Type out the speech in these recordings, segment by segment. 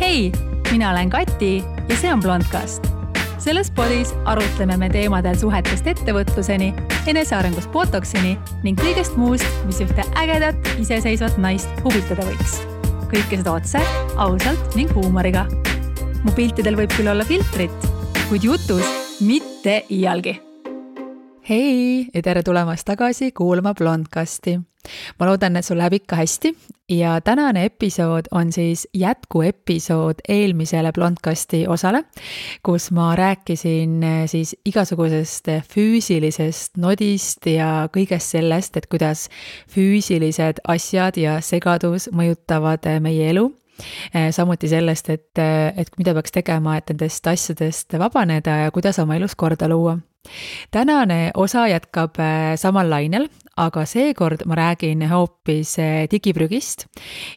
Hei, mina olen Kati ja see on Blondcast. Selles podis arutleme me teemadel suhetest ettevõtluseni, enesearengust botoksini ning kõigest muust, mis ühte ägedat, iseseisvat naist huvitada võiks. Kõike seda otse, ausalt ning huumoriga. Mu piltidel võib küll olla filtrit, kuid jutus mitte iialgi. Hei ja tere tulemast tagasi kuulama Blondcasti. Ma loodan, et sul läheb ikka hästi ja tänane episood on siis jätkuepisood eelmisele Blondcasti osale, kus ma rääkisin siis igasugusest füüsilisest nodist ja kõigest sellest, et kuidas füüsilised asjad ja segadus mõjutavad meie elu. Samuti sellest, et mida peaks tegema, et nendest asjadest vabaneda ja kuidas oma elus korda luua. Tänane osa jätkab samal lainel, aga seekord ma räägin hoopis digiprügist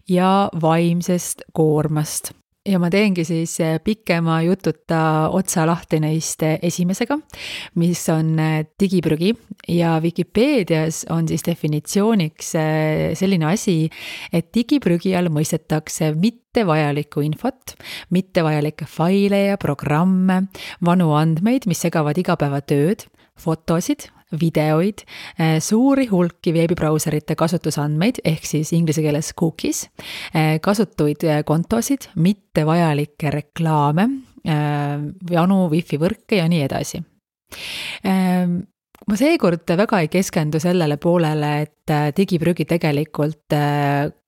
ja vaimsest koormast. Ja ma teengi siis pikema jututa otsa lahti neist esimesega, mis on digiprügi ja Vikipeedias on siis definitsiooniks selline asi, et digiprügi all mõistetakse mittevajalikku infot, mittevajalikke faile ja programme, vanu andmeid, mis segavad igapäevatööd, fotosid, videoid, suuri hulki veebibrauserite kasutusandmeid ehk siis inglise keeles cookies, kasutuid kontosid, mittevajalikke reklaame, vanu wifi võrke ja nii edasi. Ma seekord väga ei keskendu sellele poolele, et digiprügi tegelikult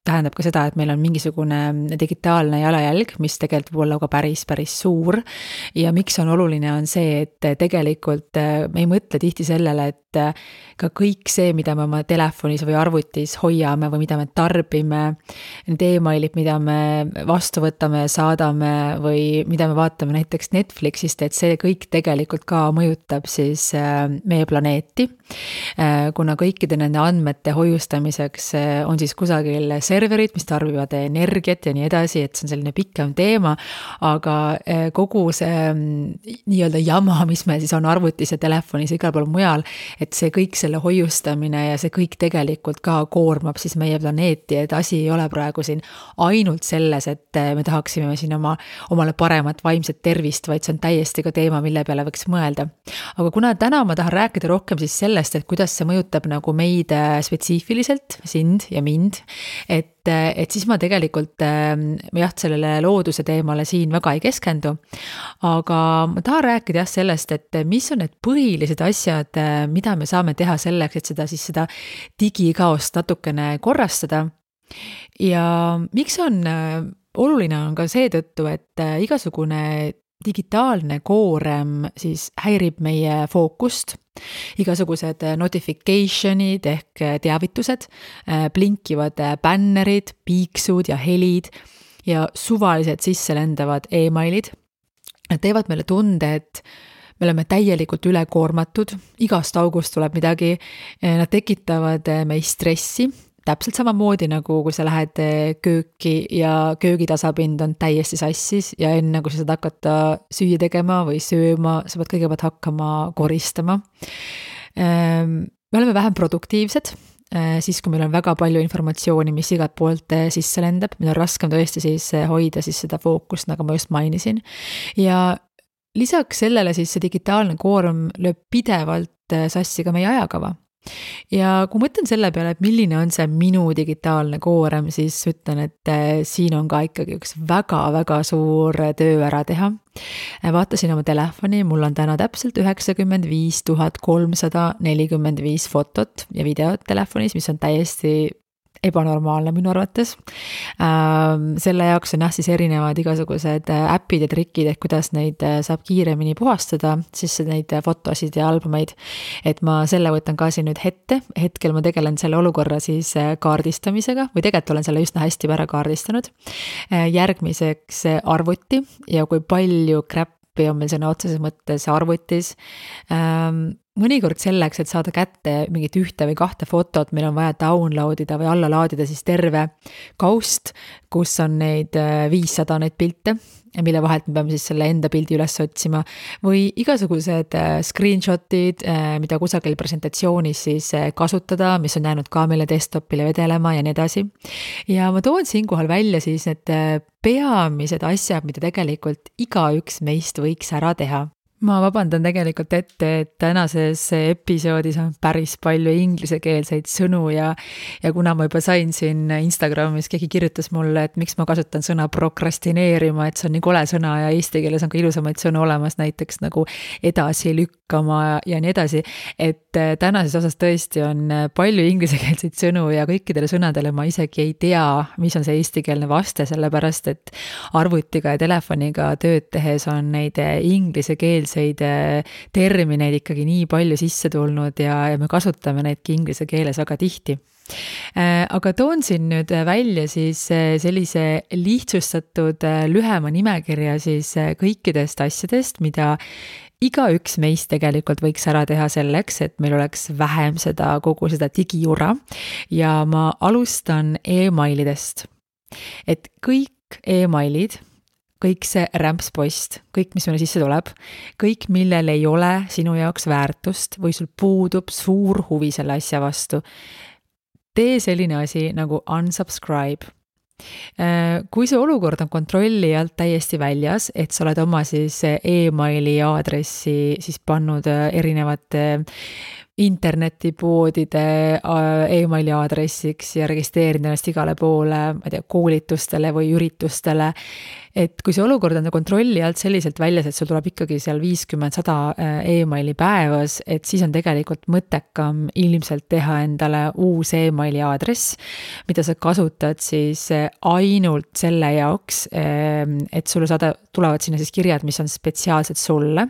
tähendab ka seda, et meil on mingisugune digitaalne jalajälg, mis tegelikult võib olla ka päris suur ja miks on oluline on see, et tegelikult me ei mõtle tihti sellele, et ka kõik see, mida me oma telefonis või arvutis hoiame või mida me tarbime, need emailid, mida me vastu võtame, saadame või mida me vaatame näiteks Netflixist, et see kõik tegelikult ka mõjutab siis meie planeeti, kuna kõikide nende andmete hoiustamiseks on siis kusagil serverid, mis tarbivad energiat ja nii edasi, et see on selline pikem teema, aga kogu see nii-öelda jama, mis me siis on arvutis ja telefonis ja igal pool mujal, et see kõik selle hoiustamine ja see kõik tegelikult ka koormab siis meie planeeti, et asi ei ole praegu siin ainult selles, et me tahaksime siin omale paremat vaimset tervist, vaid see on täiesti ka teema, mille peale võiks mõelda. Aga kuna täna ma tahan rääkida rohkem siis sellest, et kuidas see mõjutab nagu meid spetsiifiliselt, sind ja mind, et siis ma tegelikult sellele looduse teemale siin väga ei keskendu, aga ma tahan rääkida sellest, et mis on need põhilised asjad, mida me saame teha selleks, et seda digikaost natukene korrastada. Ja miks on oluline on ka seetõttu, et igasugune digitaalne koorem siis häirib meie fookust, igasugused notificationid ehk teavitused, blinkivad bännerid, piiksud ja helid ja suvalised sisselendavad emailid. Nad teevad meile tunde, et me oleme täielikult ülekoormatud, igast august tuleb midagi, nad tekitavad meist stressi, täpselt samamoodi nagu kui sa lähed kööki ja köögitasapind on täiesti sassis ja enne kui sa saad hakata süüa tegema või sööma, sa pead kõigepealt hakkama koristama. Me oleme vähem produktiivsed, siis kui meil on väga palju informatsiooni, mis igalt poolt sisse lendab, meil on raskem tõesti siis hoida siis seda fookust, nagu ma just mainisin. Ja lisaks sellele siis see digitaalne koorm lööb pidevalt sassi ka meie ajakava. Ja kui mõtlen selle peale, et milline on see minu digitaalne koorem, siis ütlen, et siin on ka ikkagi üks väga suur töö ära teha. Vaatasin oma telefoni, mul on täna täpselt 95 345 fotot ja videot telefonis, mis on täiesti ebanormaalne minu arvates. Selle jaoks on siis erinevad igasugused äpid ja trikid, et kuidas neid saab kiiremini puhastada, siis neid fotosid ja albumeid, et ma selle võtan ka siin nüüd hetkel ma tegelen selle olukorra siis kaardistamisega või tegelikult olen selle üsna hästi ära kaardistanud. Järgmiseks arvuti ja kui palju crap'i on meil sõna otseses mõttes arvutis. Mõnikord selleks, et saada kätte mingit ühte või kahte fotot, meil on vaja downloadida või alla laadida siis terve kaust, kus on neid 500 neid pilte mille vahelt me peame siis selle enda pildi üles otsima, või igasugused screenshot'id, mida kusagil presentatsioonis siis kasutada, mis on jäänud ka meile desktopile vedelema ja nii edasi. Ja ma toon siinkohal välja siis need peamised asjad, mida tegelikult igaüks meist võiks ära teha. Ma vabandan tegelikult ette, et tänases episoodis on päris palju inglisekeelseid sõnu ja kuna ma juba sain siin Instagramis, keegi kirjutas mulle, et miks ma kasutan sõna prokrastineerima, et see on nii kole sõna ja eesti keeles on ka ilusamaid sõnu olemas, näiteks nagu edasi lükkama ja nii edasi, et tänases osas tõesti on palju inglisekeelseid sõnu ja kõikidele sõnadele ma isegi ei tea, mis on see eestikeelne vaste, sellepärast et arvutiga ja telefoniga tööd tehes on neid inglisekeelseid termineid ikkagi nii palju sisse tulnud ja me kasutame neidki inglise keeles väga tihti. Aga toon siin nüüd välja siis sellise lihtsustatud lühema nimekirja siis kõikidest asjadest, mida igaüks meist tegelikult võiks ära teha selleks, et meil oleks vähem kogu seda digijura ja ma alustan emailidest. Et kõik emailid, kõik see rämpspost, kõik, mis meile sisse tuleb, kõik, millel ei ole sinu jaoks väärtust või sul puudub suur huvi selle asja vastu, tee selline asi nagu unsubscribe. Kui see olukord on kontrolli alt täiesti väljas, et sa oled oma siis emaili aadressi siis pannud erinevate internetipoodide emaili aadressiks ja registreerinud ennast igale poole, ma ei tea, koolitustele või üritustele, et kui see olukord on kontrolli alt selliselt väljas, et sul tuleb ikkagi seal 50-100 emaili päevas, et siis on tegelikult mõttekam ilmselt teha endale uus emaili aadress, mida sa kasutad siis ainult selle jaoks, et sulle tulevad sinna siis kirjad, mis on spetsiaalsed sulle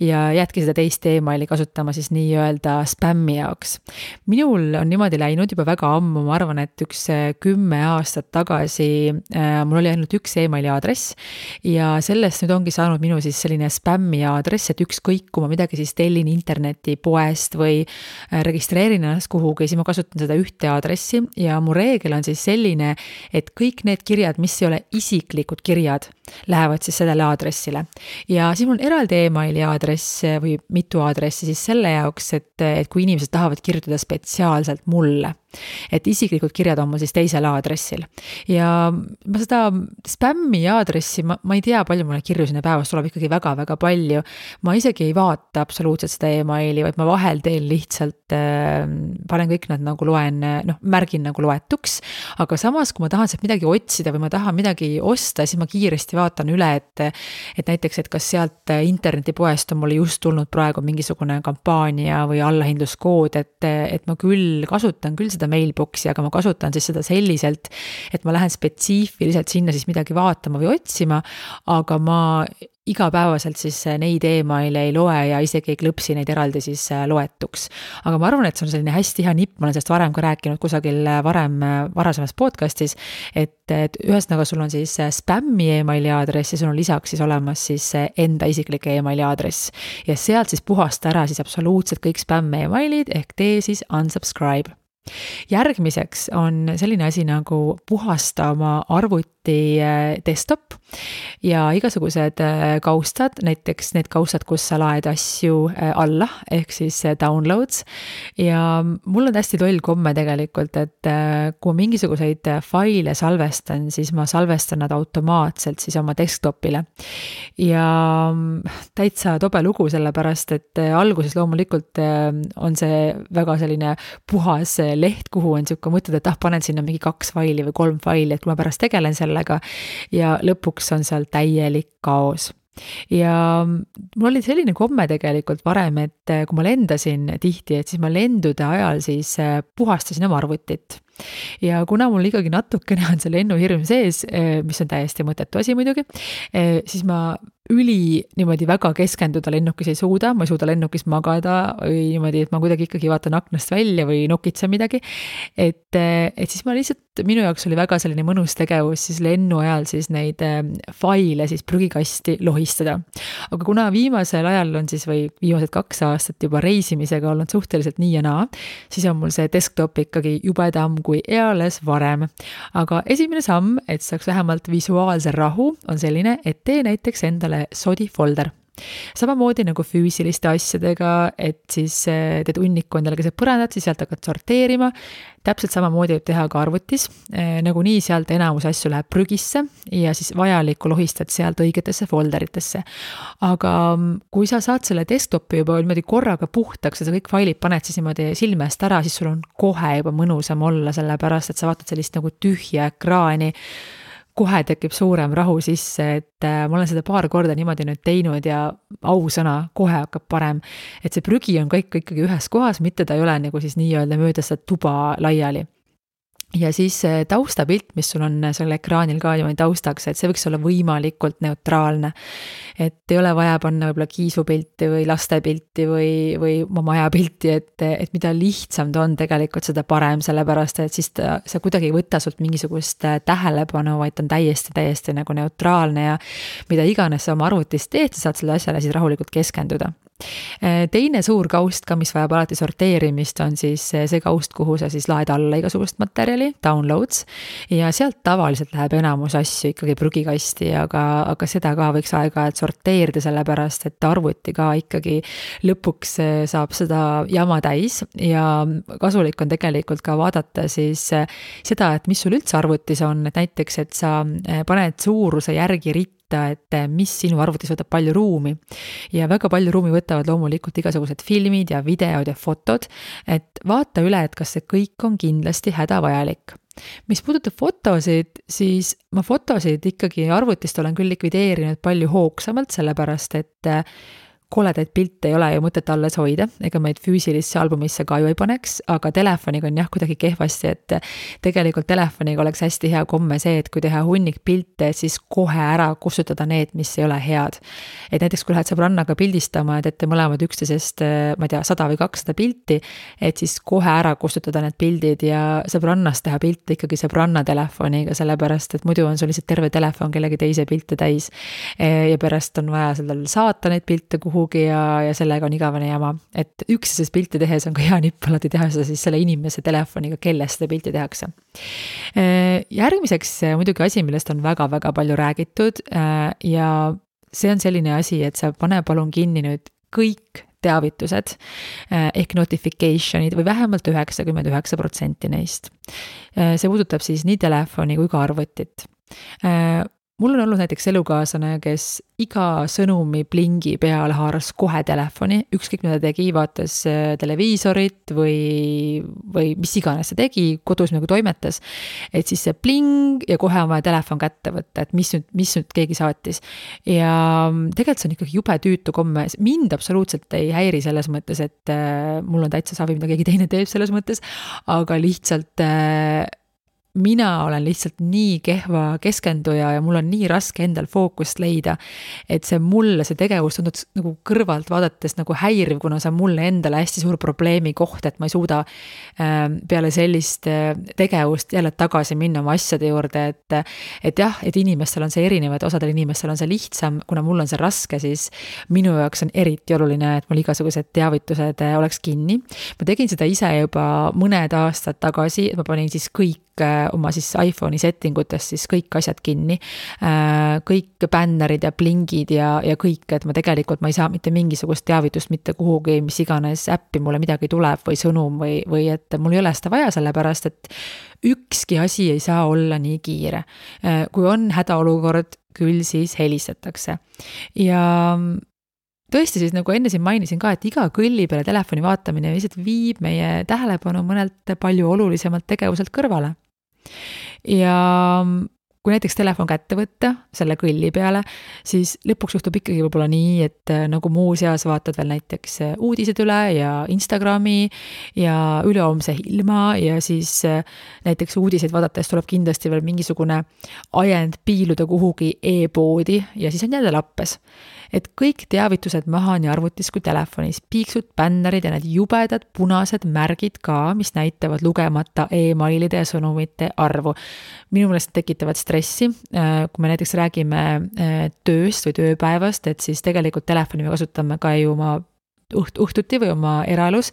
ja jätki seda teist emaili kasutama siis nii-öelda spämmi jaoks. Minul on niimoodi läinud juba väga ammu, ma arvan, et 10 aastat tagasi mul oli ainult üks emaili aadress ja sellest nüüd ongi saanud minu siis selline spämmi aadress, et ükskõik, kui ma midagi siis tellin internetipoest või registreerin ennast kuhugi, siis ma kasutan seda ühte aadressi ja mu reegel on siis selline, et kõik need kirjad, mis ei ole isiklikud kirjad, lähevad siis sellele aadressile. Ja siis mul on eraldi emaili aadress või mitu aadressi siis selle jaoks, et kui inimesed tahavad kirjutada spetsiaalselt mulle, et isiklikud kirjad on mul siis teisel aadressil. Ja ma seda spämmi aadressi, ma ei tea, palju mulle kirju sinna päevas tuleb ikkagi väga-väga palju. Ma isegi ei vaata absoluutselt seda emaili, vaid ma vahel teen lihtsalt, panen kõik nad nagu märgin nagu loetuks, aga samas, kui ma tahan sealt midagi otsida või ma tahan midagi osta, siis ma kiiresti vaatan üle, et näiteks, et kas sealt internetipoest on mulle just tulnud praegu mingisugune kampaania või allahindluskood, et ma kasutan küll seda mailboxi, aga ma kasutan siis seda selliselt, et ma lähen spetsiifiliselt sinna siis midagi vaatama või otsima, aga ma igapäevaselt siis neid emaile ei loe ja isegi ei klõpsi neid eraldi siis loetuks. Aga ma arvan, et see on selline hästi hea nipp, ma olen sellest varem ka rääkinud kusagil varasemas podcastis, et ühesõnaga sul on siis spämmi emaili aadress ja sul on lisaks siis olemas siis enda isiklik emaili aadress. Ja sealt siis puhasta ära siis absoluutselt kõik spämmi emailid ehk tee siis unsubscribe. Järgmiseks on selline asi nagu puhasta oma arvuti desktop ja igasugused kaustad, näiteks need kaustad, kus sa laed asju alla, ehk siis downloads. Ja mul on hästi toll komme tegelikult, et kui mingisuguseid faile salvestan, siis ma salvestan nad automaatselt siis oma desktopile. Ja täitsa tobe lugu sellepärast, et alguses loomulikult on see väga selline puhas leht, kuhu on siuke mõtted, et panen sinna mingi 2 faili või 3 faili, et kui ma pärast tegelen sellega ja lõpuks on seal täielik kaos. Ja mul oli selline komme tegelikult varem, et kui ma lendasin tihti, et siis ma lendude ajal siis puhastasin oma arvutit. Ja kuna mul ikkagi natukene on see lennuhirm sees, mis on täiesti mõttetu asi muidugi, siis ma niimoodi väga keskenduda lennukis ei suuda, ma ei suuda lennukis magada või niimoodi, et ma kuidagi ikkagi vaatan aknast välja või nokitsen midagi, et siis ma lihtsalt minu jaoks oli väga selline mõnus tegevus siis lennu ajal siis neid faile siis prügikasti lohistada. Aga kuna viimasel ajal on siis või viimased 2 aastat juba reisimisega olnud suhteliselt nii ja naa, siis on mul see desktop ikkagi jubedam kui eales varem. Aga esimene samm, et saaks vähemalt visuaalse rahu, on selline, et tee näiteks endale sodi folder. Samamoodi nagu füüsiliste asjadega, et siis teed hunniku endale keset põrandat, siis sealt hakkad sorteerima. Täpselt samamoodi võib teha ka arvutis, nagu nii sealt enamus asju läheb prügisse ja siis vajalikku lohistad sealt õigetesse folderitesse. Aga kui sa saad selle desktopi juba niimoodi korraga puhtaks ja sa kõik failid paned siis niimoodi silmest ära, siis sul on kohe juba mõnusam olla, sellepärast et sa vaatad sellist nagu tühja ekraani, kohe tekib suurem rahu sisse, et ma olen seda paar korda niimoodi nüüd teinud ja ausõna, kohe hakkab parem. Et see prügi on kõik ikkagi ühes kohas, mitte ta ei ole nagu siis nii-öelda mööda seda tuba laiali. Ja siis taustapilt, mis sul on selle ekraanil ka niimoodi taustaks, et see võiks olla võimalikult neutraalne. Et ei ole vaja panna võib-olla kiisupilti või lastepilti või oma majapilti, et mida lihtsam ta on tegelikult seda parem, sellepärast et siis sa kuidagi ei võta sult mingisugust tähelepanu, vaid ta on täiesti nagu neutraalne ja mida iganes sa oma arvutis teed, sa saad selle asjale siis rahulikult keskenduda. Teine suur kaust ka, mis vajab alati sorteerimist, on siis see kaust, kuhu sa siis laed alla igasugust materjali, downloads, ja sealt tavaliselt läheb enamus asju ikkagi prügikasti, aga seda ka võiks aeg-ajalt sorteerida, sellepärast et arvuti ka ikkagi lõpuks saab seda jama täis ja kasulik on tegelikult ka vaadata siis seda, et mis sul üldse arvutis on, et näiteks, et sa paned suuruse järgi ritta, et mis sinu arvutis võtab palju ruumi ja väga palju ruumi võtavad loomulikult igasugused filmid ja videod ja fotod, et vaata üle, et kas see kõik on kindlasti hädavajalik. Mis puudutab fotosid, siis ma fotosid ikkagi arvutist olen küll likvideerinud palju hoogsamalt, sellepärast et koledaid pilte ei ole ju mõtet alles hoida, ega meid füüsilisse albumisse ka ju ei paneks, aga telefoniga on jah kuidagi kehvasti, et tegelikult telefoniga oleks hästi hea komme see, et kui teha hunnik pilte, siis kohe ära kustutada need, mis ei ole head. Et näiteks kui lähed sõbrannaga pildistama, et teete mõlemad üksteisest, ma ei tea, 100 või 200 pilti, et siis kohe ära kustutada need pildid ja sõbrannast teha pilte ikkagi sõbranna telefoniga, sellepärast et muidu on sul lihtsalt terve telefon kellegi teise pilte täis ja pärast on vaja sellel saata neid pilte kuhugi ja sellega on igavene jama. Et üksteisest pilti tehes on ka hea nipp alati teha seda siis selle inimese telefoniga, kellest seda pilti tehakse. Järgmiseks muidugi asi, millest on väga-väga palju räägitud ja see on selline asi, et sa pane palun kinni nüüd kõik teavitused ehk notificationid või vähemalt 99% neist. See puudutab siis nii telefoni kui ka arvutit. Mul on olnud näiteks elukaaslane, kes iga sõnumi plingi peale haaras kohe telefoni, ükskõik mida tegi, vaatas televiisorit või mis iganes see tegi, kodus nagu toimetas, et siis see pling ja kohe on vaja telefon kätte võtta, et mis nüüd keegi saatis. Ja tegelikult see on ikkagi jube tüütu komme, mind absoluutselt ei häiri selles mõttes, et mul on täitsa savi, mida keegi teine teeb selles mõttes, aga lihtsalt mina olen lihtsalt nii kehva keskenduja ja mul on nii raske endal fookust leida, et see tegevus tundub nagu kõrvalt vaadates nagu häiriv, kuna see on mulle endale hästi suur probleemi koht, et ma ei suuda peale sellist tegevust jälle tagasi minna oma asjade juurde, et jah, et inimestel on see erinev, et osadel inimestel on see lihtsam, kuna mul on see raske, siis minu jaoks on eriti oluline, et mul igasugused teavitused oleks kinni. Ma tegin seda ise juba mõned aastad tagasi, et ma panin siis kõik oma siis iPhone'i settingutest siis kõik asjad kinni, kõik bännerid ja plingid ja kõik, et ma ei saa mitte mingisugust teavitust mitte kuhugi, mis iganes äppi mulle midagi tuleb või sõnum või et mul ei ole seda vaja, sellepärast et ükski asi ei saa olla nii kiire. Kui on hädaolukord, küll siis helistatakse. Ja tõesti siis nagu enne siin mainisin ka, et iga kõlli peale telefoni vaatamine lihtsalt viib meie tähelepanu mõnelt palju olulisemalt tegevuselt kõrvale. Ja kui näiteks telefon kätte võtta selle kõlli peale, siis lõpuks juhtub ikkagi võib-olla nii, et nagu muu seas vaatad veel näiteks uudised üle ja Instagrami ja ülehoomse ilma ja siis näiteks uudiseid vaadates tuleb kindlasti veel mingisugune ajend piiluda kuhugi e-poodi ja siis on jälle lappes. et kõik teavitused maha nii arvutis kui telefonis, piiksud, bännerid ja need jubedad punased märgid ka, mis näitavad lugemata emailide ja sõnumite arvu. Minu meelest tekitavad stressi, kui me näiteks räägime tööst või tööpäevast, et siis tegelikult telefoni me kasutame ka ju oma õhtuti või oma eraelus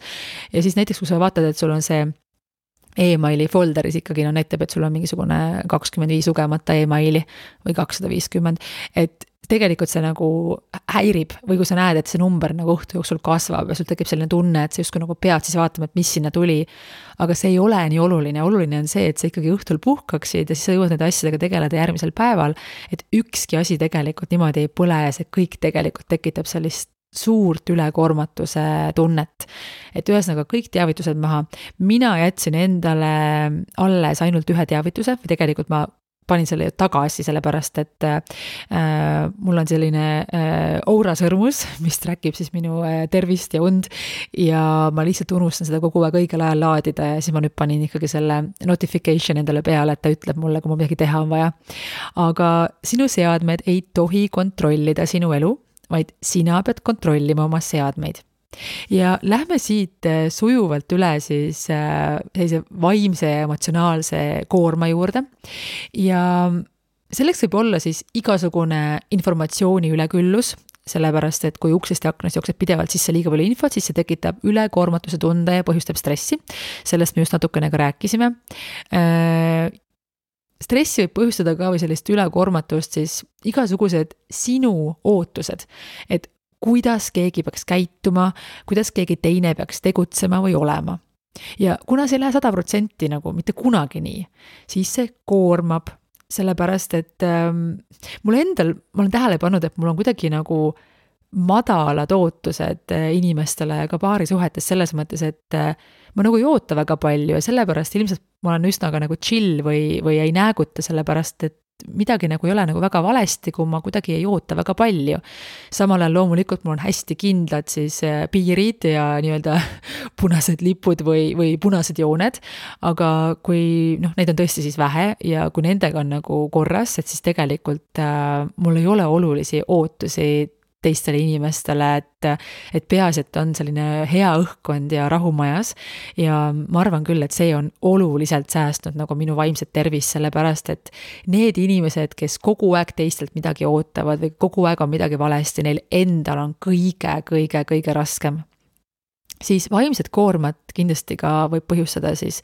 ja siis näiteks, kui sa vaatad, et sul on see emaili folderis ikkagi näitab, et sul on mingisugune 25 lugemata emaili või 250, et tegelikult see nagu häirib või kui sa näed, et see number nagu õhtu jooksul kasvab ja sul tekib selline tunne, et sa justkui nagu pead siis vaatama, et mis sinna tuli, aga see ei ole nii oluline on see, et sa ikkagi õhtul puhkaksid ja siis sa jõuad nende asjadega tegeleda järgmisel päeval, et ükski asi tegelikult niimoodi ei põle ja see kõik tegelikult tekitab sellist suurt ülekoormatuse tunnet. Et ühesõnaga kõik teavitused maha. Mina jätsin endale alles ainult ühe teavituse või tegelikult ma panin selle tagasi, sellepärast, et mul on selline Oura sõrmus, mis trackib siis minu tervist ja und ja ma lihtsalt unustan seda kogu aeg õigel ajal laadida ja siis ma nüüd panin ikkagi selle notification endale peale, et ta ütleb mulle, kui mul midagi teha on vaja. Aga sinu seadmed ei tohi kontrollida sinu elu, vaid sina pead kontrollima oma seadmeid. Ja lähme siit sujuvalt üle siis sellise vaimse ja emotsionaalse koorma juurde ja selleks võib olla siis igasugune informatsiooni üleküllus, sellepärast, et kui uksest ja aknast jookseb pidevalt sisse liiga palju infot, siis see tekitab ülekoormatuse tunde ja põhjustab stressi. Sellest me just natukene ka rääkisime. Stressi võib põhjustada ka või sellist ülekoormatust siis igasugused sinu ootused, et kuidas keegi peaks käituma, kuidas keegi teine peaks tegutsema või olema. Ja kuna see ei lähe 100% nagu mitte kunagi nii, siis see koormab, sellepärast, et mul endal, ma olen tähele pannud, et mul on kuidagi nagu madalad ootused inimestele ka paarisuhetes selles mõttes, et ma nagu ei oota väga palju ja sellepärast ilmselt ma olen üsna ka nagu chill või ei nääguta sellepärast, et midagi nagu ei ole nagu väga valesti, kui ma kuidagi ei oota väga palju. Samal ajal loomulikult mul on hästi kindlad siis piirid ja nii-öelda punased lipud või punased jooned, aga kui neid on tõesti siis vähe ja kui nendega on nagu korras, et siis tegelikult mul ei ole olulisi ootusi teistele inimestele, et peaasi, et on selline hea õhkkond ja rahumajas ja ma arvan küll, et see on oluliselt säästnud nagu minu vaimset tervist, sellepärast, et need inimesed, kes kogu aeg teistelt midagi ootavad või kogu aeg on midagi valesti, neil endal on kõige raskem. Siis vaimset koormat kindlasti ka võib põhjustada siis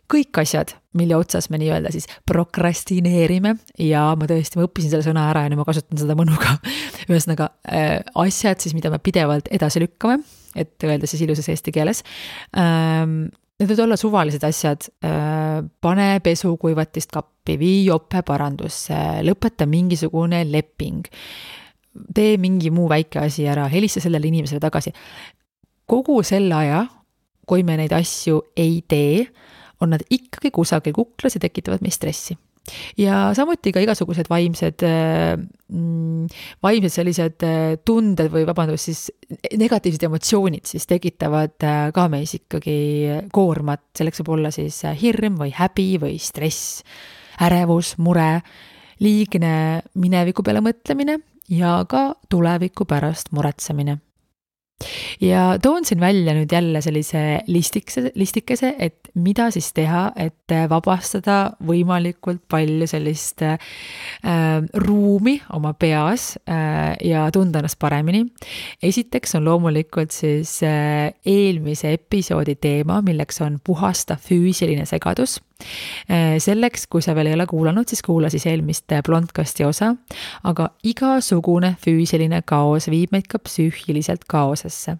kõik asjad, mille otsas me nii-öelda siis prokrastineerime ja ma õppisin selle sõna ära ja nüüd ma kasutan seda mõnuga. Ühesõnaga asjad siis, mida me pidevalt edasi lükkame, et öelda siis ilusas eesti keeles. Need võivad olla suvalised asjad, pane pesukuivatist kappi, vii jope parandusse, lõpeta mingisugune leping, tee mingi muu väike asi ära, helista sellele inimesele tagasi. Kogu selle aja, kui me neid asju ei tee, on nad ikkagi kusagil kuklas ja tekitavad meid stressi. Ja samuti ka igasugused vaimsed sellised tunded või siis negatiivsed emotsioonid siis tekitavad ka meis ikkagi koormat. Selleks võib olla siis hirm või häbi või stress, ärevus, mure, liigne mineviku peale mõtlemine ja ka tuleviku pärast muretsemine. Ja toon siin välja nüüd jälle sellise listikese, et mida siis teha, et vabastada võimalikult palju sellist ruumi oma peas ja tunda ennast paremini. Esiteks on loomulikult siis eelmise episoodi teema, milleks on puhasta füüsiline segadus. Selleks, kui sa veel ei ole kuulanud, siis kuula siis eelmist blondkasti osa, aga igasugune füüsiline kaos viib meid ka psüühiliselt kaosesse.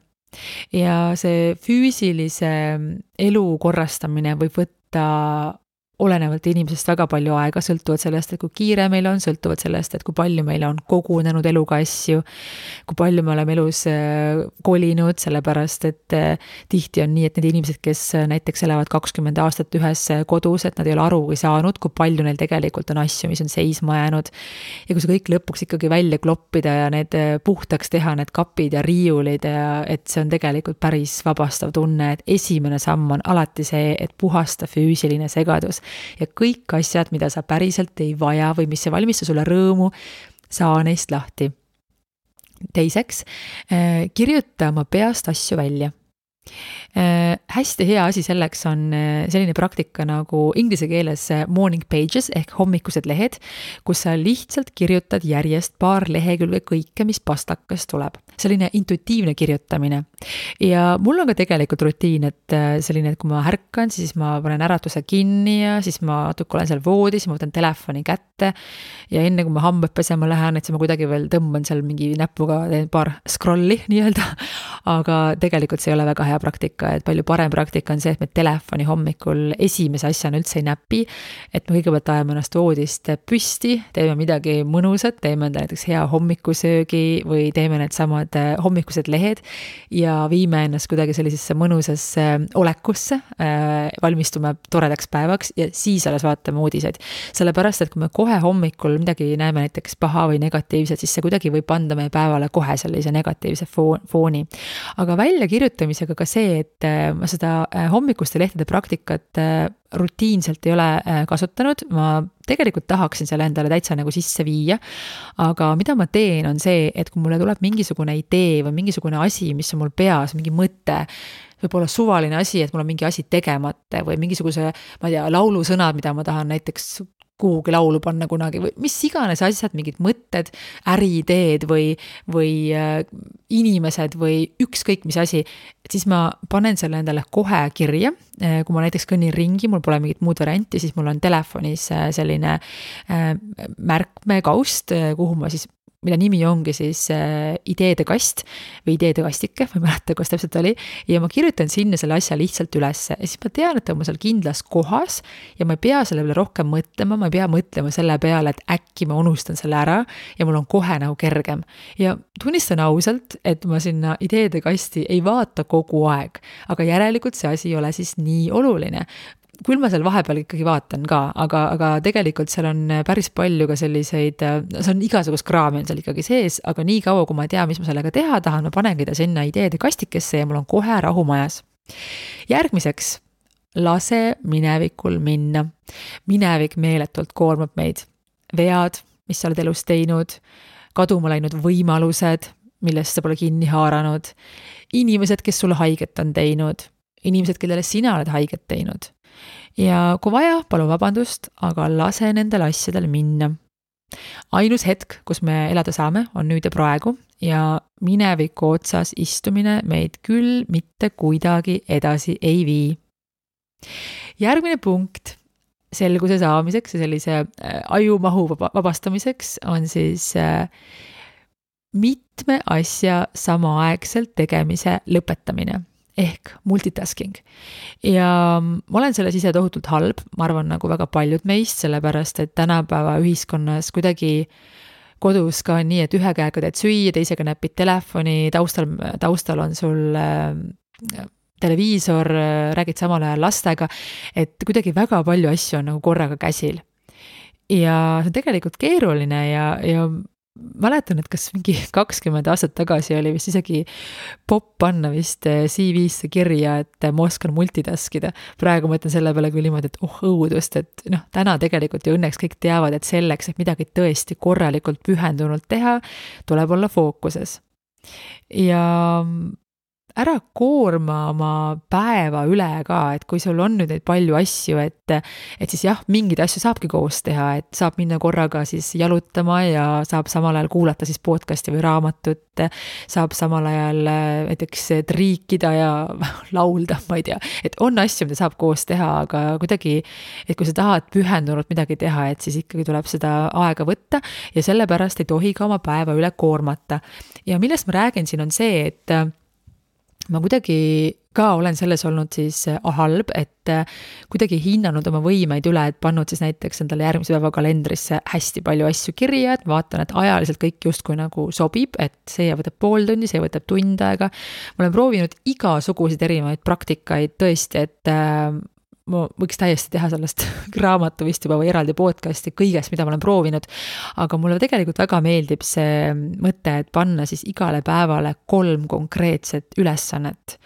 Ja see füüsilise elu korrastamine võib võtta olenevalt inimesest väga palju aega, sõltuvalt sellest, et kui kiire meil on, sõltuvalt sellest, et kui palju meil on kogunenud eluga asju, kui palju me oleme elus kolinud, sellepärast, et tihti on nii, et need inimesed, kes näiteks elavad 20 aastat ühes kodus, et nad ei ole arugi saanud, kui palju neil tegelikult on asju, mis on seisma jäänud. Ja kui see kõik lõpuks ikkagi välja kloppida ja need puhtaks teha, need kapid ja riiulid, et see on tegelikult päris vabastav tunne, et esimene samm on alati see, et puhasta füüsiline segadus. Ja kõik asjad, mida sa päriselt ei vaja või mis ei valmista sulle rõõmu, saa neist lahti. Teiseks, kirjuta oma peast asju välja. Hästi hea asi selleks on selline praktika nagu inglise keeles morning pages ehk hommikused lehed, kus sa lihtsalt kirjutad järjest paar lehekülge kõike, mis pastakas tuleb. Selline intuitiivne kirjutamine. Ja mul on ka tegelikult rutiin, et selline, et kui ma ärkan, siis ma panen äratuse kinni ja siis ma natuke olen seal voodis, ma võtan telefoni kätte ja enne kui ma hambad pesema lähen, et siis ma kuidagi veel tõmban seal mingi näpuga, teen paar scrolli nii-öelda, aga tegelikult see ei ole väga hea praktika, et palju parem praktika on see, et me telefoni hommikul esimese asjana üldse ei näpi, et me kõigepealt ajame ennast voodist püsti, teeme midagi mõnusat, teeme enda näiteks hea hommikusöögi või teeme need samad hommikused lehed ja viime ennast kuidagi sellisesse mõnusasse olekusse, valmistume toredaks päevaks ja siis alles vaatame uudiseid. Sellepärast, et kui me kohe hommikul midagi näeme näiteks paha või negatiivset, siis see kuidagi võib anda meie päevale kohe sellise negatiivse fooni. Aga väljakirjutamisega ka see, et ma seda hommikuste lehtede praktikat rutiinselt ei ole kasutanud, ma tegelikult tahaksin selle endale täitsa nagu sisse viia, aga mida ma teen on see, et kui mulle tuleb mingisugune idee või mingisugune asi, mis on mul peas, mingi mõte, võib-olla suvaline asi, et mul on mingi asi tegemata või mingisuguse, ma ei tea, laulusõnad, mida ma tahan näiteks kuhugi laulu panna kunagi või mis iganes asjad, mingid mõtted, äriideed või inimesed või ükskõik mis asi, et siis ma panen selle endale kohe kirja. Kui ma näiteks kõnnin ringi, mul pole mingit muud varianti, siis mul on telefonis selline märkmekaust, kuhu ma siis mille nimi ongi siis ideede kast või ideede kastike, ma ei mäleta, kus täpselt oli, ja ma kirjutan sinna selle asja lihtsalt ülesse ja siis ma tean, et ta on seal kindlas kohas ja ma ei pea selle peale rohkem mõtlema, ma ei pea mõtlema selle peale, et äkki ma unustan selle ära ja mul on kohe nagu kergem. Ja tunnistan ausalt, et ma sinna ideede kasti ei vaata kogu aeg, aga järelikult see asi ei ole siis nii oluline. Küll ma seal vahepeal ikkagi vaatan ka, aga tegelikult seal on päris palju ka selliseid, see on igasugust kraami on seal ikkagi sees, aga nii kaua, kui ma ei tea, mis ma sellega teha tahan, ma panengi ta sinna ideede kastikesse ja mul on kohe rahu majas. Järgmiseks, lase minevikul minna. Minevik meeletult koormab meid. Vead, mis sa oled elus teinud, kaduma läinud võimalused, millest sa pole kinni haaranud, inimesed, kes sulle haiget on teinud, inimesed, kellele sina oled haiget teinud. Ja kui vaja, palun vabandust, aga lase nendel asjadel minna. Ainus hetk, kus me elada saame, on nüüd ja praegu ja mineviku otsas istumine meid küll mitte kuidagi edasi ei vii. Järgmine punkt selguse saamiseks ja sellise ajumahu vabastamiseks on siis mitme asja samaaegselt tegemise lõpetamine. Ehk multitasking. Ja ma olen selles ise tohutult halb, ma arvan nagu väga paljud meist, sellepärast et tänapäeva ühiskonnas kuidagi kodus ka on nii, et ühe käega teed süüa, teisega näpid telefoni, taustal on sul televiisor, räägid samal ajal lastega, et kuidagi väga palju asju on nagu korraga käsil. Ja see on tegelikult keeruline ja mäletan, et kas mingi 20 aastat tagasi oli vist isegi popp panna vist CV-sse kirja, et ma oskan multitaskida. Praegu mõtlen selle peale küll niimoodi, et õudust, et täna tegelikult ju õnneks kõik teavad, et selleks, et midagi tõesti korralikult pühendunult teha, tuleb olla fookuses. Ja ära koorma oma päeva üle ka, et kui sul on nüüd neid palju asju, et siis jah, mingeid asju saabki koos teha, et saab minna korraga siis jalutama ja saab samal ajal kuulata siis podcasti või raamatut, saab samal ajal näiteks triikida ja laulda, ma ei tea, et on asju, mida saab koos teha, aga kuidagi, et kui sa tahad pühendunult midagi teha, et siis ikkagi tuleb seda aega võtta ja sellepärast ei tohi ka oma päeva üle koormata. Ja millest ma räägin siin on see, et ma kuidagi ka olen selles olnud siis halb, et kuidagi hinnanud oma võimeid üle, et pannud siis näiteks endale järgmise päeva kalendrisse hästi palju asju kirja, et vaatan, et ajaliselt kõik justkui nagu sobib, et see võtab pool tundi, see võtab tund aega. Ma olen proovinud igasuguseid erinevaid praktikaid tõesti, et ma võiks täiesti teha sellest raamatu vist juba või eraldi podcasti kõigest, mida ma olen proovinud, aga mulle tegelikult väga meeldib see mõte, et panna siis igale päevale 3 konkreetset ülesannet,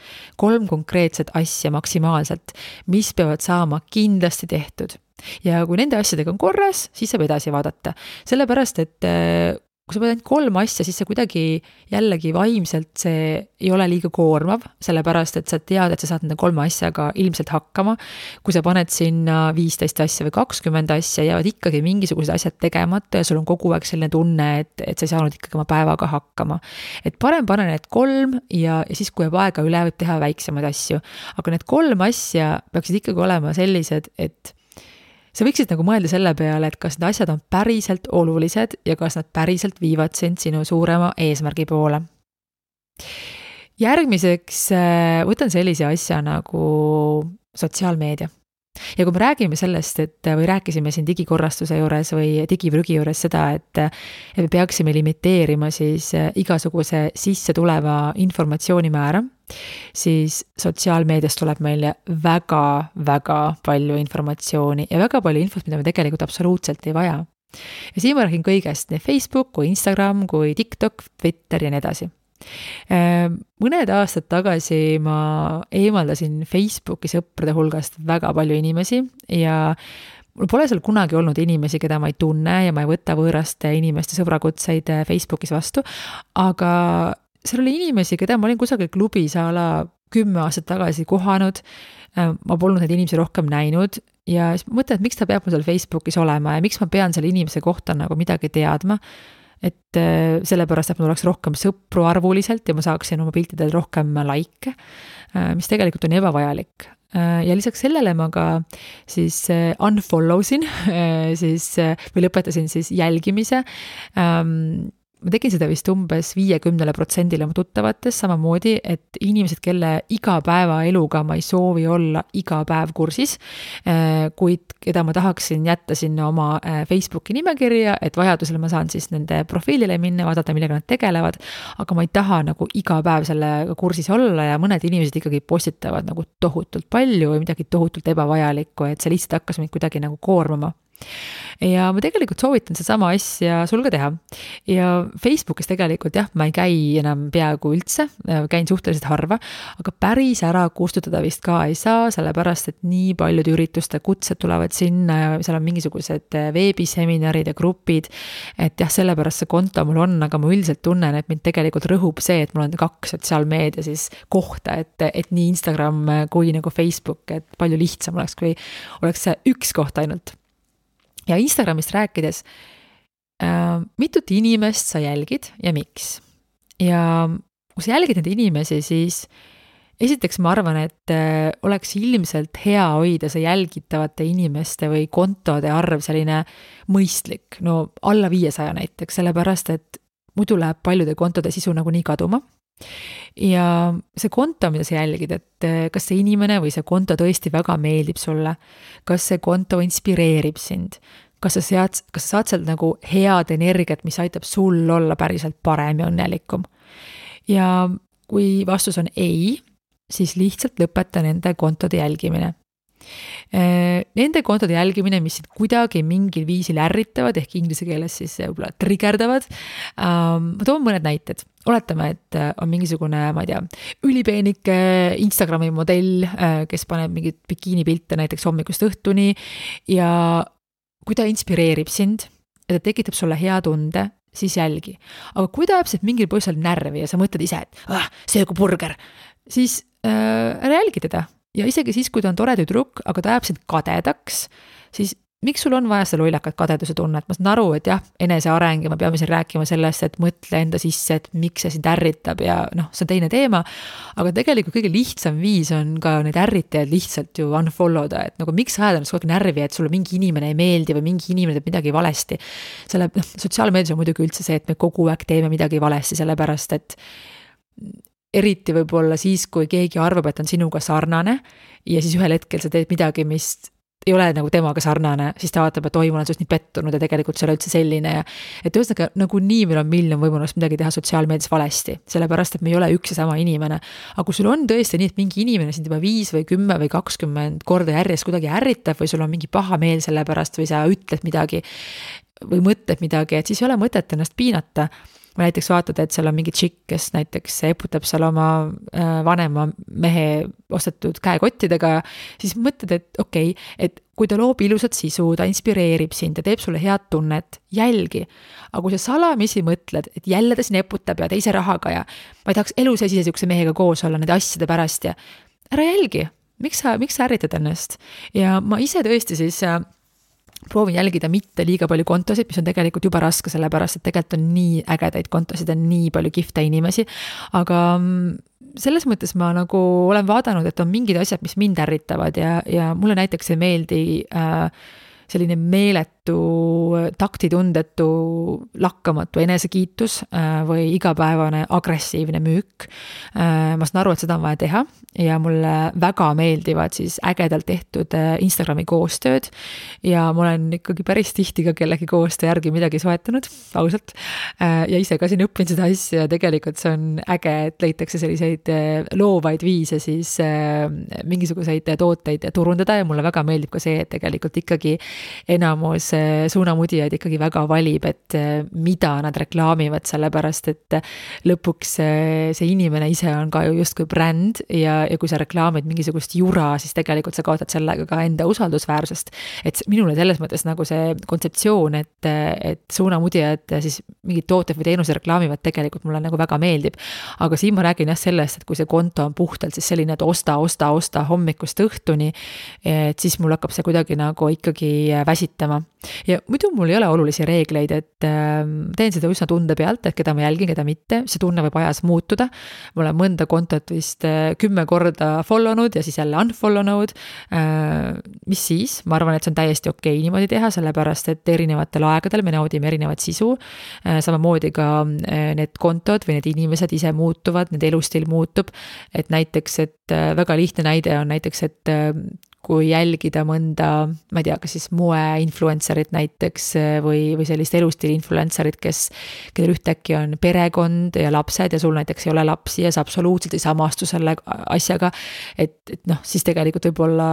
3 konkreetset asja maksimaalselt, mis peavad saama kindlasti tehtud. Ja kui nende asjadega on korras, siis saab edasi vaadata. Sellepärast, et kui sa pead ainult 3 asja, siis see kuidagi jällegi vaimselt see ei ole liiga koormav, sellepärast et sa tead, et sa saad nende 3 asjaga ilmselt hakkama. Kui sa paned sinna 15 asja või 20 asja, jäävad ikkagi mingisugused asjad tegemata ja sul on kogu aeg selline tunne, et sa ei saanud ikkagi oma päevaga hakkama. Et parem pane need 3 ja siis, kui jääb aega üle, võib teha väiksemaid asju. Aga need 3 asja peaksid ikkagi olema sellised, et sa võiksid nagu mõelda selle peale, et kas need asjad on päriselt olulised ja kas nad päriselt viivad sind sinu suurema eesmärgi poole. Järgmiseks võtan sellise asja nagu sotsiaalmeedia. Ja kui me räägime sellest, või rääkisime siin digikorrastuse juures või digiprügi juures seda, et me peaksime limiteerima siis igasuguse sisse tuleva informatsiooni määra, siis sotsiaalmeediast tuleb meile väga palju informatsiooni ja väga palju infot, mida me tegelikult absoluutselt ei vaja. Ja siin ma räägin kõigest, nii Facebook, kui Instagram, kui TikTok, Twitter ja nii edasi. Mõned aastad tagasi ma eemaldasin Facebooki sõprade hulgast väga palju inimesi ja mul pole seal kunagi olnud inimesi, keda ma ei tunne ja ma ei võta võõraste inimeste sõbrakutseid Facebookis vastu, aga seal oli inimesi, keda ma olin kusagil klubis a la 10 aastat tagasi kohanud, ma polnud neid inimesi rohkem näinud ja siis mõtlen, et miks ta peab mul seal Facebookis olema ja miks ma pean selle inimese kohta nagu midagi teadma, et sellepärast, et mul oleks rohkem sõpru arvuliselt ja ma saaksin oma piltidel rohkem like, mis tegelikult on ebavajalik. Ja lisaks sellele ma ka siis unfollow sin siis, või lõpetasin siis jälgimise. Ma tegin seda vist umbes 50% oma tuttavates, samamoodi, et inimesed, kelle igapäevaeluga ma ei soovi olla iga päev kursis, kuid keda ma tahaksin jätta sinna oma Facebooki nimekirja, et vajadusel ma saan siis nende profiilile minna, vaadata, millega nad tegelevad, aga ma ei taha nagu iga päev sellega kursis olla ja mõned inimesed ikkagi postitavad nagu tohutult palju või midagi tohutult ebavajalikku, et see lihtsalt hakkas mind kuidagi nagu koormama. Ja ma tegelikult soovitan sedasama asja sul ka teha. Ja Facebookis tegelikult jah, ma ei käi enam peaaegu üldse, käin suhteliselt harva, aga päris ära kustutada vist ka ei saa, sellepärast, et nii paljud ürituste kutsed tulevad sinna ja seal on mingisugused veebiseminarid ja grupid, et jah, sellepärast see konto mul on, aga ma üldiselt tunnen, et mind tegelikult rõhub see, et mul on 2 sotsiaalmeedia siis kohta, et nii Instagram kui nagu Facebook, et palju lihtsam oleks, kui oleks see 1 koht ainult. Ja Instagramist rääkides, mitut inimest sa jälgid ja miks? Ja kui sa jälgid neid inimesi, siis esiteks ma arvan, et oleks ilmselt hea hoida see jälgitavate inimeste või kontode arv selline mõistlik, no alla 500 näiteks, sellepärast, et muidu läheb paljude kontode sisu nagu nii kaduma. Ja see konto, mida sa jälgid, et kas see inimene või see konto tõesti väga meeldib sulle, kas see konto inspireerib sind, kas sa saad sealt nagu head energiat, mis aitab sul olla päriselt parem ja õnnelikum. Ja kui vastus on ei, siis lihtsalt lõpeta nende kontode jälgimine. Nende kontode jälgimine, mis kuidagi mingil viisil ärritavad, ehk inglise keeles siis võib-olla triggerdavad. Ma toon mõned näited. Oletame, et on mingisugune, ma ei tea, ülipeenike Instagrami modell, kes paneb mingit bikiinipilte näiteks hommikust õhtuni ja kui ta inspireerib sind ja ta tekitab sulle hea tunde, siis jälgi. Aga kui ta jääb mingil põhjusel närvi ja sa mõtled ise, et see kui burger, siis ära jälgi teda. Ja isegi siis, kui ta on tore tüdruk, aga ta jääb sind kadedaks, siis miks sul on vaja seda lollakat kadeduse tunnet? Ma saan aru, et jah, eneseareng ja me peame siin rääkima sellest, et mõtle enda sisse, et miks see sind ärritab ja see on teine teema, aga tegelikult kõige lihtsam viis on ka need ärritajad lihtsalt ju unfollow da, et nagu miks ajada ennast kogu aeg närvi, et sulle mingi inimene ei meeldi või mingi inimene teeb midagi valesti. Sotsiaalmeedias on muidugi üldse see, et me kogu aeg teeme midagi valesti, sellepärast et eriti võib-olla siis, kui keegi arvab, et on sinuga sarnane ja siis ühel hetkel sa teed midagi, mis ei ole nagu temaga sarnane, siis ta vaatab, et oi, ma olen sinust nii pettunud ja tegelikult see ei ole üldse selline ja et ühesõnaga nagu nii meil on miljon võimalust midagi teha sotsiaalmeedias valesti, sellepärast, et me ei ole üks ja sama inimene. Aga kui sul on tõesti nii, et mingi inimene sind juba 5 või 10 või 20 korda järjest kuidagi ärritab või sul on mingi paha meel selle pärast või sa ütled midagi või mõtled midagi, et siis ei ole mõtet ennast piinata. või näiteks vaatad, et seal on mingi tšikk, kes näiteks eputab seal oma vanema mehe ostetud käekottidega, siis mõtled, et okei, et kui ta loob ilusat sisu, ta inspireerib sind, ta teeb sulle head tunnet, jälgi. Aga kui sa salamisi mõtled, et jälle ta siin eputab ja teise rahaga ja ma ei tahaks elu sees ise sihukese mehega koos olla nende asjade pärast ja ära jälgi, miks sa ärritad ennast? Ja ma ise tõesti siis proovin jälgida mitte liiga palju kontosid, mis on tegelikult juba raske, sellepärast et tegelikult on nii ägedaid kontosid, on nii palju kihvte inimesi, aga selles mõttes ma nagu olen vaadanud, et on mingid asjad, mis mind ärritavad ja mulle näiteks ei meeldi selline meeletu, taktitundetu, lakkamatu enesekiitus või igapäevane agressiivne müük. Ma saan aru, et seda on vaja teha ja mulle väga meeldivad siis ägedalt tehtud Instagrami koostööd ja ma olen ikkagi päris tihti ka kellegi koostöö järgi midagi soetanud, ausalt. Ja ise ka siin õppin seda asja ja tegelikult see on äge, et leitakse selliseid loovaid viise siis mingisuguseid tooteid turundada ja mulle väga meeldib ka see, et tegelikult ikkagi enamus suunamudijaid ikkagi väga valib, et mida nad reklaamivad, sellepärast et lõpuks see inimene ise on ka ju justkui bränd ja kui sa reklaamid mingisugust jura, siis tegelikult sa kaotad sellega ka enda usaldusväärsust. Et minule selles mõttes nagu see kontseptsioon, et suunamudijad siis mingid tooted või teenuse reklaamivad tegelikult mulle nagu väga meeldib. Aga siin ma räägin jah sellest, et kui see konto on puhtalt siis selline, et osta hommikust õhtuni, et siis mul hakkab see kuidagi nagu ikkagi väsitama. Ja muidu mul ei ole olulisi reegleid, et teen seda üsna tunde pealt, et keda ma jälgin, keda mitte, see tunne võib ajas muutuda. Ma olen mõnda kontot vist 10 korda follownud ja siis jälle unfollownud. Mis siis? Ma arvan, et see on täiesti okei niimoodi teha, sellepärast et erinevatel aegadel me naudime erinevat sisu. Samamoodi ka need kontod või need inimesed ise muutuvad, need elustil muutub. Et näiteks, et väga lihtne näide on näiteks, et kui jälgida mõnda, ma ei tea, kas siis moe-influencerit näiteks või sellist elustiili influencerit, kellel ühtäkki on perekond ja lapsed ja sul näiteks ei ole lapsi ja sa absoluutselt ei samastu selle asjaga, et noh, siis tegelikult võib-olla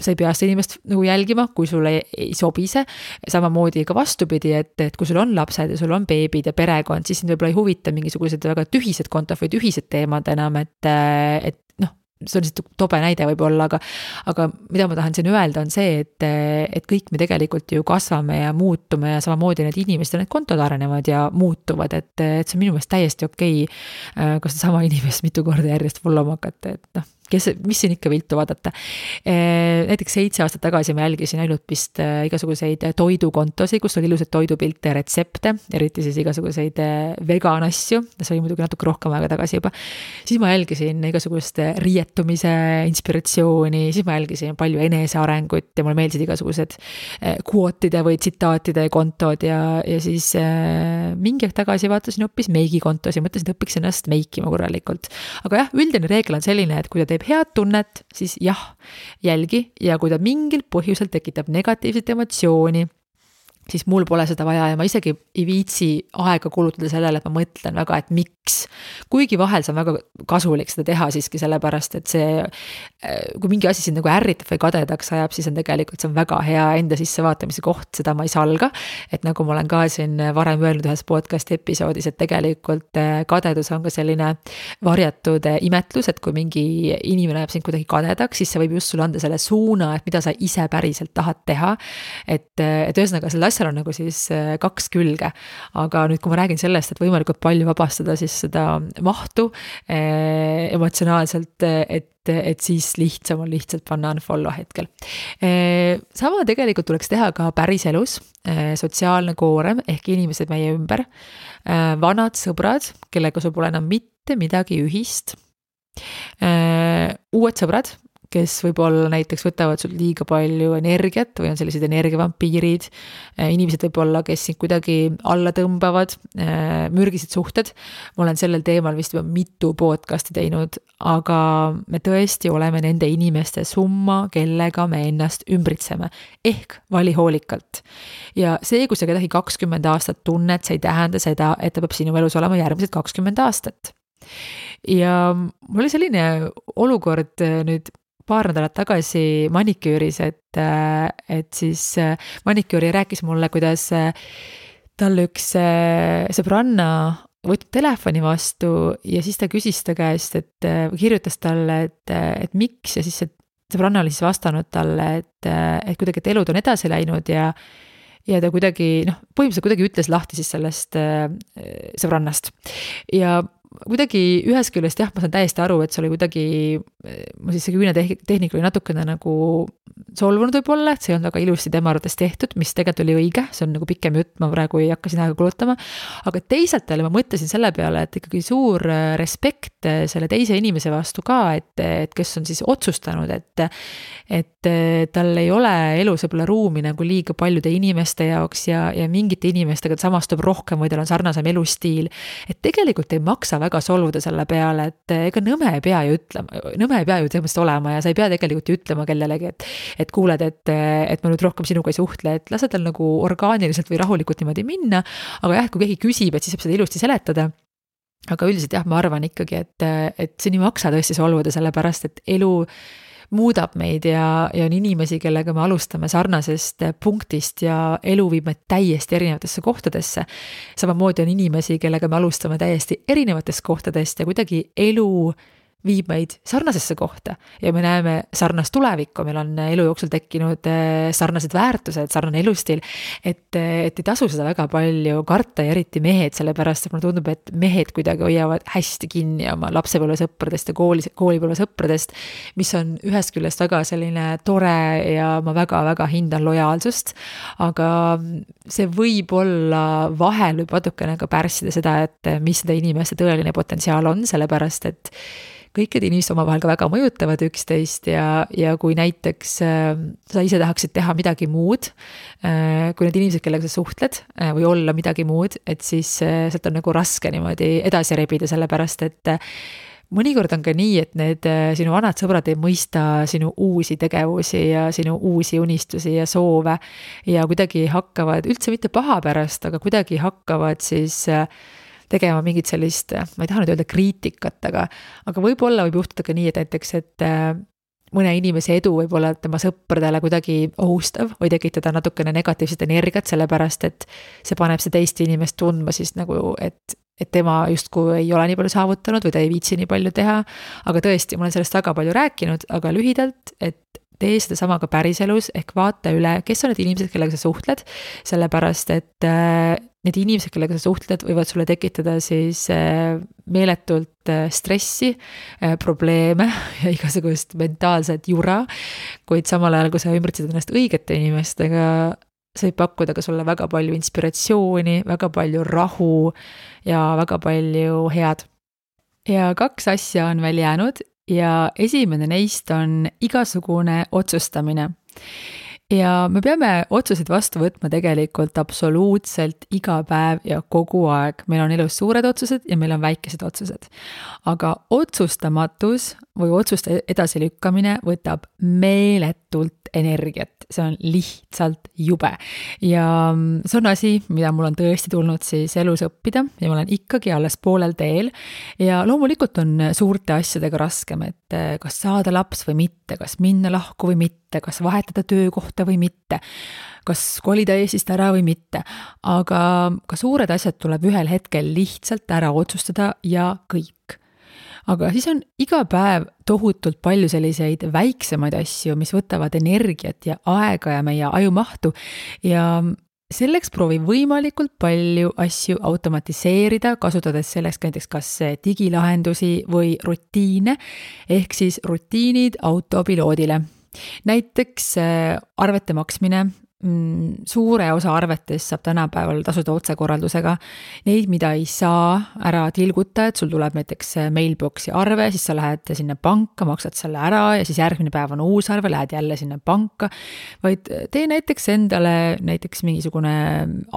sa ei pea seda inimest nagu jälgima, kui sulle ei sobi see. Samamoodi ka vastupidi, et kui sul on lapsed ja sul on beebid ja perekond, siis sind võib-olla ei huvita mingisugused väga tühised kontod või tühised teemad enam, et noh, see on lihtsalt tobe näide võib-olla, aga mida ma tahan siin öelda on see, et kõik me tegelikult ju kasvame ja muutume ja samamoodi need inimesed ja need kontod arenevad ja muutuvad, et see on minu meelest täiesti okei, kas sama inimest mitu korda järjest followma hakata, et noh, mis siin ikka viltu vaadata. Näiteks 7 aastat tagasi ma jälgisin ainult vist igasuguseid toidukontosi, kus oli ilusad toidupilte ja retsepte, eriti siis igasuguseid vegan asju, see oli muidugi natuke rohkem aega tagasi juba. Siis ma jälgisin igasugust riietumise inspiratsiooni, siis ma jälgisin palju enesearengut ja mulle meeldisid igasugused quote'ide või tsitaatide kontod ja siis mingi aeg tagasi vaatasin hoopis meigikontosi, mõtlesin, et õpiks ennast meikima korralikult. Aga jah, üldine reegel on selline, et kui ta teeb head tunnet, siis jah, jälgi ja kui ta mingil põhjusel tekitab negatiivset emotsiooni, siis mul pole seda vaja ja ma isegi ei viitsi aega kulutada sellele, et ma mõtlen väga, et miks. Kuigi vahel see on väga kasulik seda teha siiski sellepärast, et see, kui mingi asi sind nagu ärritab või kadedaks ajab, siis on tegelikult see on väga hea enda sissevaatamise koht, seda ma ei salga. Et nagu ma olen ka siin varem öelnud ühes podcast episoodis, et tegelikult kadedus on ka selline varjatud imetlus, et kui mingi inimene läheb sind kuidagi kadedaks, siis see võib just sulle anda selle suuna, et mida sa ise päriselt tahad teha. Et ühesõnaga selle asjal on nagu siis 2 külge, aga nüüd kui ma räägin sellest, et võimalikult palju vabastada siis seda mahtu emotsionaalselt, et siis lihtsam on lihtsalt panna unfollow hetkel. Sama tegelikult tuleks teha ka päriselus, sotsiaalne koorem ehk inimesed meie ümber, vanad sõbrad, kellega sul pole enam mitte midagi ühist, uued sõbrad, kes võib-olla näiteks võtavad sul liiga palju energiat või on sellised energiavampiirid, inimesed võib-olla, kes sind kuidagi alla tõmbavad, mürgised suhted. Ma olen sellel teemal vist juba mitu podcasti teinud, aga me tõesti oleme nende inimeste summa, kellega me ennast ümbritseme, ehk vali hoolikalt. Ja see, kui sa kedagi 20 aastat tunned, see ei tähenda seda, et ta peab sinu elus olema järgmised 20 aastat. Ja mul oli selline olukord nüüd paar nädalat tagasi maniküüris, et siis maniküüri rääkis mulle, kuidas tal üks sõbranna võtnud telefoni vastu ja siis ta küsis ta käest, et kirjutas talle, et miks ja siis see sõbranna oli siis vastanud talle, et kuidagi, et elud on edasi läinud ja ta kuidagi, põhimõtteliselt kuidagi ütles lahti siis sellest sõbrannast. Ja kuidagi ühest küljest jah, ma saan täiesti aru, et see oli kuidagi, ma siis see küüne tehnika oli natukene nagu solvunud võib-olla, et see ei olnud väga ilusti tema arvates tehtud, mis tegelikult oli õige, see on nagu pikem jutt, ma praegu ei hakka siin aega kulutama, aga teisalt jälle ma mõtlesin selle peale, et ikkagi suur respekt selle teise inimese vastu ka, et kes on siis otsustanud, et tal ei ole elus võib-olla ruumi nagu liiga paljude inimeste jaoks ja mingite inimestega samastub rohkem või tal on sarnasem elustiil, et tegelikult ei maksa väga solvuda selle peale, et ega nõme ei pea ju tõepoolest olema ja sa ei pea tegelikult ju ütlema kellelegi, et kuuled, et ma nüüd rohkem sinuga ei suhtle, et lase tal nagu orgaaniliselt või rahulikult niimoodi minna, aga jah, kui keegi küsib, et siis saab seda ilusti seletada. Aga üldiselt jah, ma arvan ikkagi, et siin ei maksa tõesti solvuda, sellepärast et elu muudab meid ja on inimesi, kellega me alustame sarnasest punktist ja elu viib meid täiesti erinevatesse kohtadesse. Samamoodi on inimesi, kellega me alustame täiesti erinevatest kohtadest ja kuidagi elu viib meid sarnasesse kohta ja me näeme sarnast tulevikku, meil on elu jooksul tekkinud sarnased väärtused, sarnane elustiil, et ei tasu seda väga palju karta ja eriti mehed, sellepärast et mulle tundub, et mehed kuidagi hoiavad hästi kinni oma lapsepõlvesõpradest ja koolipõlvesõpradest, mis on ühest küljest väga selline tore ja ma väga-väga hindan lojaalsust, aga see võib olla vahel võib natukene ka pärssida seda, et mis seda inimeste tõeline potentsiaal on, sellepärast et kõik need inimesed omavahel ka väga mõjutavad üksteist ja kui näiteks sa ise tahaksid teha midagi muud, kui need inimesed, kellega sa suhtled või olla midagi muud, et siis sealt on nagu raske niimoodi edasi rebida, sellepärast et mõnikord on ka nii, et need sinu vanad sõbrad ei mõista sinu uusi tegevusi ja sinu uusi unistusi ja soove ja kuidagi hakkavad üldse mitte paha pärast, aga kuidagi hakkavad siis tegema mingit sellist, ma ei taha nüüd öelda kriitikat, aga võib-olla võib juhtuda ka nii, et näiteks, et mõne inimese edu võib olla tema sõpradele kuidagi ohustav või tekitada natukene negatiivset energiat, sellepärast et see paneb see teist inimest tundma siis nagu, et tema justkui ei ole nii palju saavutanud või ta ei viitsi nii palju teha, aga tõesti, ma olen sellest väga palju rääkinud, aga lühidalt, et tee seda sama ka päriselus, ehk vaata üle, kes on need inimesed, kellega sa suhtled, sellepärast et need inimesed, kellega sa suhtled, võivad sulle tekitada siis meeletult stressi, probleeme ja igasugust mentaalset jura, kuid samal ajal, kui sa ümbritsed ennast õigete inimestega, see võib pakkuda ka sulle väga palju inspiratsiooni, väga palju rahu ja väga palju head. Ja 2 asja on veel jäänud ja esimene neist on igasugune otsustamine. Ja me peame otsuseid vastu võtma tegelikult absoluutselt iga päev ja kogu aeg. Meil on elus suured otsused ja meil on väikesed otsused. Aga otsustamatus või otsuste edasilükkamine võtab meeletult energiat. See on lihtsalt jube. Ja see on asi, mida mul on tõesti tulnud siis elus õppida ja ma olen ikkagi alles poolel teel. Ja loomulikult on suurte asjadega raskem, et kas saada laps või mitte, kas minna lahku või mitte, kas vahetada töökohta või mitte, kas kolida Eestist ära või mitte. Aga ka suured asjad tuleb ühel hetkel lihtsalt ära otsustada ja kõik. Aga siis on iga päev tohutult palju selliseid väiksemaid asju, mis võtavad energiat ja aega ja meie ajumahtu ja selleks proovi võimalikult palju asju automatiseerida, kasutades selleks näiteks kas digilahendusi või rutiine, ehk siis rutiinid autopiloodile. Näiteks arvete maksmine, suure osa arvetest saab tänapäeval tasuda otsekorraldusega. Neid, mida ei saa ära tilguta, et sul tuleb näiteks mailboxi arve, siis sa lähed sinna panka, maksad selle ära ja siis järgmine päev on uus arve, lähed jälle sinna panka. Vaid tee näiteks endale näiteks mingisugune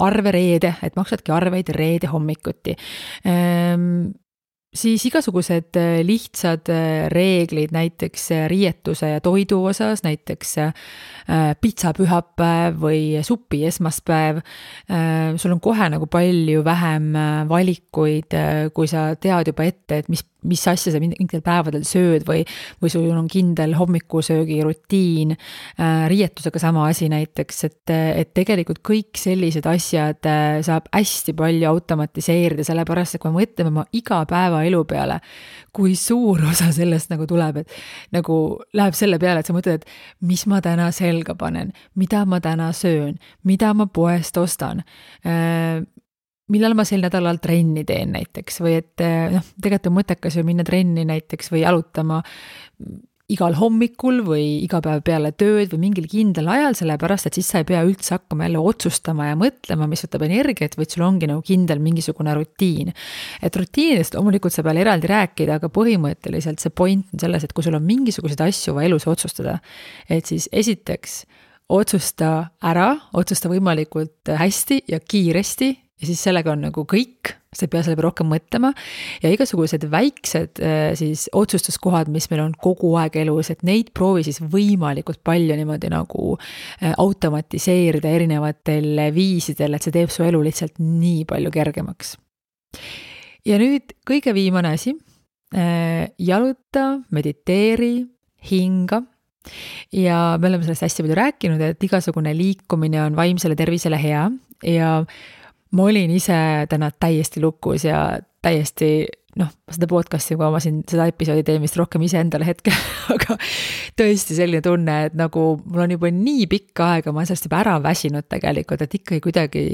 arve reede, et maksadki arveid reede hommikuti. siis igasugused lihtsad reeglid näiteks riietuse ja toidu osas, näiteks pitsapühapäev või supi esmaspäev. Sul on kohe nagu palju vähem valikuid, kui sa tead juba ette, et mis asja sa mingitel päevadel sööd või sul on kindel hommikusöögi rutiin. Riietusega sama asi näiteks, et tegelikult kõik sellised asjad saab hästi palju automatiseerida, sellepärast, et kui me mõtleme oma igapäevaelu peale, kui suur osa sellest nagu tuleb, et nagu läheb selle peale, et sa mõtled, et mis ma täna selga panen, mida ma täna söön, mida ma poest ostan, millal ma sel nädalal trenni teen näiteks või et tegelikult on mõttekas ju minna trenni näiteks või jalutama igal hommikul või iga päev peale tööd või mingil kindlal ajal, sellepärast, et siis sa ei pea üldse hakkama jälle otsustama ja mõtlema, mis võtab energiat, vaid sul ongi nagu kindel mingisugune rutiin. Et rutiinidest loomulikult sa peal eraldi rääkida, aga põhimõtteliselt see point on selles, et kui sul on mingisuguseid asju vaja elus otsustada, et siis esiteks otsusta võimalikult hästi ja kiiresti ja siis sellega on nagu kõik, sa ei pea selle peale rohkem mõtlema ja igasugused väiksed siis otsustuskohad, mis meil on kogu aeg elus, et neid proovi siis võimalikult palju niimoodi nagu automatiseerida erinevatel viisidel, et see teeb su elu lihtsalt nii palju kergemaks. Ja nüüd kõige viimane asi, jaluta, mediteeri, hinga. Ja me oleme sellest hästi palju rääkinud, et igasugune liikumine on vaimsele tervisele hea ja ma olin ise täna täiesti lukus ja täiesti, seda podcasti, kui ma siin seda episoodi teen vist rohkem ise endale hetkel, aga tõesti selline tunne, et nagu mul on juba nii pikka aega, ma olen sellest juba ära väsinud tegelikult, et ikkagi kuidagi,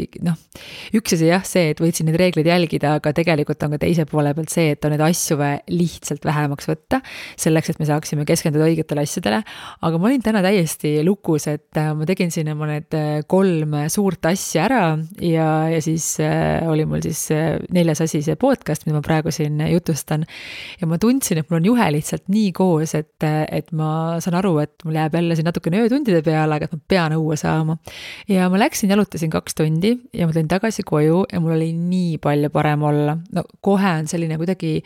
üks asi jah see, et võitsin neid reegleid jälgida, aga tegelikult on ka teise poole pealt see, et on neid asju lihtsalt vähemaks võtta, selleks, et me saaksime keskenduda õigetele asjadele, aga ma olin täna täiesti lukus, et ma tegin siin oma need 3 suurt asja ära ja siis oli mul siis 4. asi see podcast, mida ma praegu siin jutustan ja ma tundsin, et mul on juhe lihtsalt nii koos, et ma saan aru, et mul jääb jälle siin natukene öötundide peale, aga et ma pean õue saama. Ja ma läksin, jalutasin 2 tundi ja ma tulin tagasi koju ja mul oli nii palju parem olla. Kohe on selline kuidagi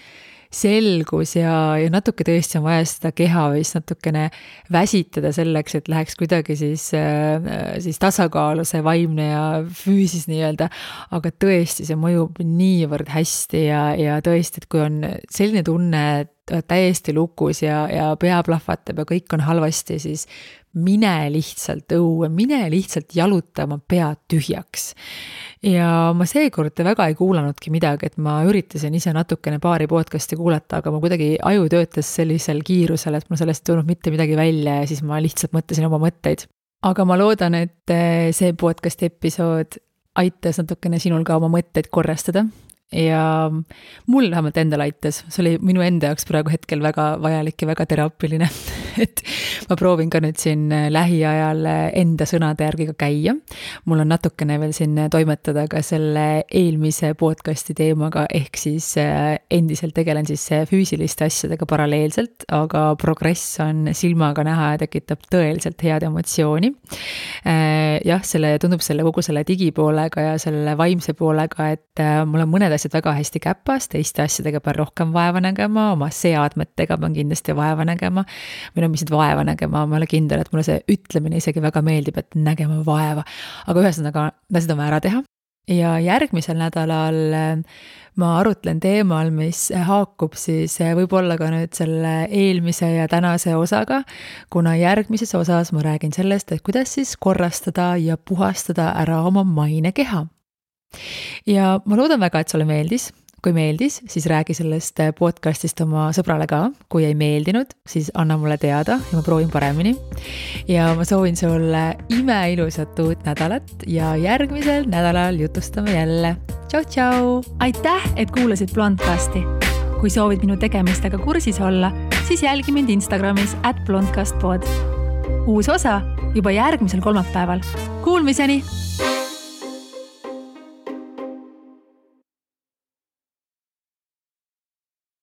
selgus ja natuke tõesti on vaja seda keha vist natukene väsitada selleks, et läheks kuidagi siis tasakaalu see vaimne ja füüsis nii-öelda, aga tõesti see mõjub niivõrd hästi ja tõesti, et kui on selline tunne, et täiesti lukus ja pea plahvatab ja kõik on halvasti, siis mine lihtsalt õue, mine lihtsalt jaluta oma pead tühjaks. Ja ma seekord väga ei kuulanudki midagi, et ma üritasin ise natukene paari podcasti kuulata, aga ma kuidagi aju töötas sellisel kiirusel, et mul sellest ei tulnud mitte midagi välja ja siis ma lihtsalt mõtlesin oma mõtteid. Aga ma loodan, et see podcasti episood aitas natukene sinul ka oma mõtteid korrastada ja mul vähemalt endal aitas, see oli minu enda jaoks praegu hetkel väga vajalik ja väga teraapiline, et ma proovin ka nüüd siin lähiajal enda sõnade järgi ka käia. Mul on natukene veel siin toimetada ka selle eelmise podcasti teemaga, ehk siis endiselt tegelen siis füüsiliste asjadega paralleelselt, aga progress on silmaga näha ja tekitab tõeliselt head emotsiooni. Jah, tundub kogu selle digipoolega ja selle vaimse poolega, et mul on mõned asjad väga hästi käpas, teiste asjadega pean rohkem vaeva nägema, oma seadmetega pean kindlasti vaeva nägema, või mis vaeva nägema, ma olen kindel, et mulle see ütlemine isegi väga meeldib, et nägema vaeva, aga ühesõnaga, seda on vaja ära teha. Ja järgmisel nädalal ma arutlen teemal, mis haakub siis võib-olla ka nüüd selle eelmise ja tänase osaga, kuna järgmises osas ma räägin sellest, et kuidas siis korrastada ja puhastada ära oma mainekeha. Ja ma loodan väga, et sulle meeldis. Kui meeldis, siis räägi sellest podcastist oma sõbrale ka. Kui ei meeldinud, siis anna mulle teada ja ma proovin paremini. Ja ma soovin sulle imeilusat uut nädalat ja järgmisel nädalal jutustame jälle. Tšau, tšau! Aitäh, et kuulasid Blondcasti. Kui soovid minu tegemistega kursis olla, siis jälgi mind Instagramis @blondcastpod. Uus osa juba järgmisel kolmapäeval. Kuulmiseni!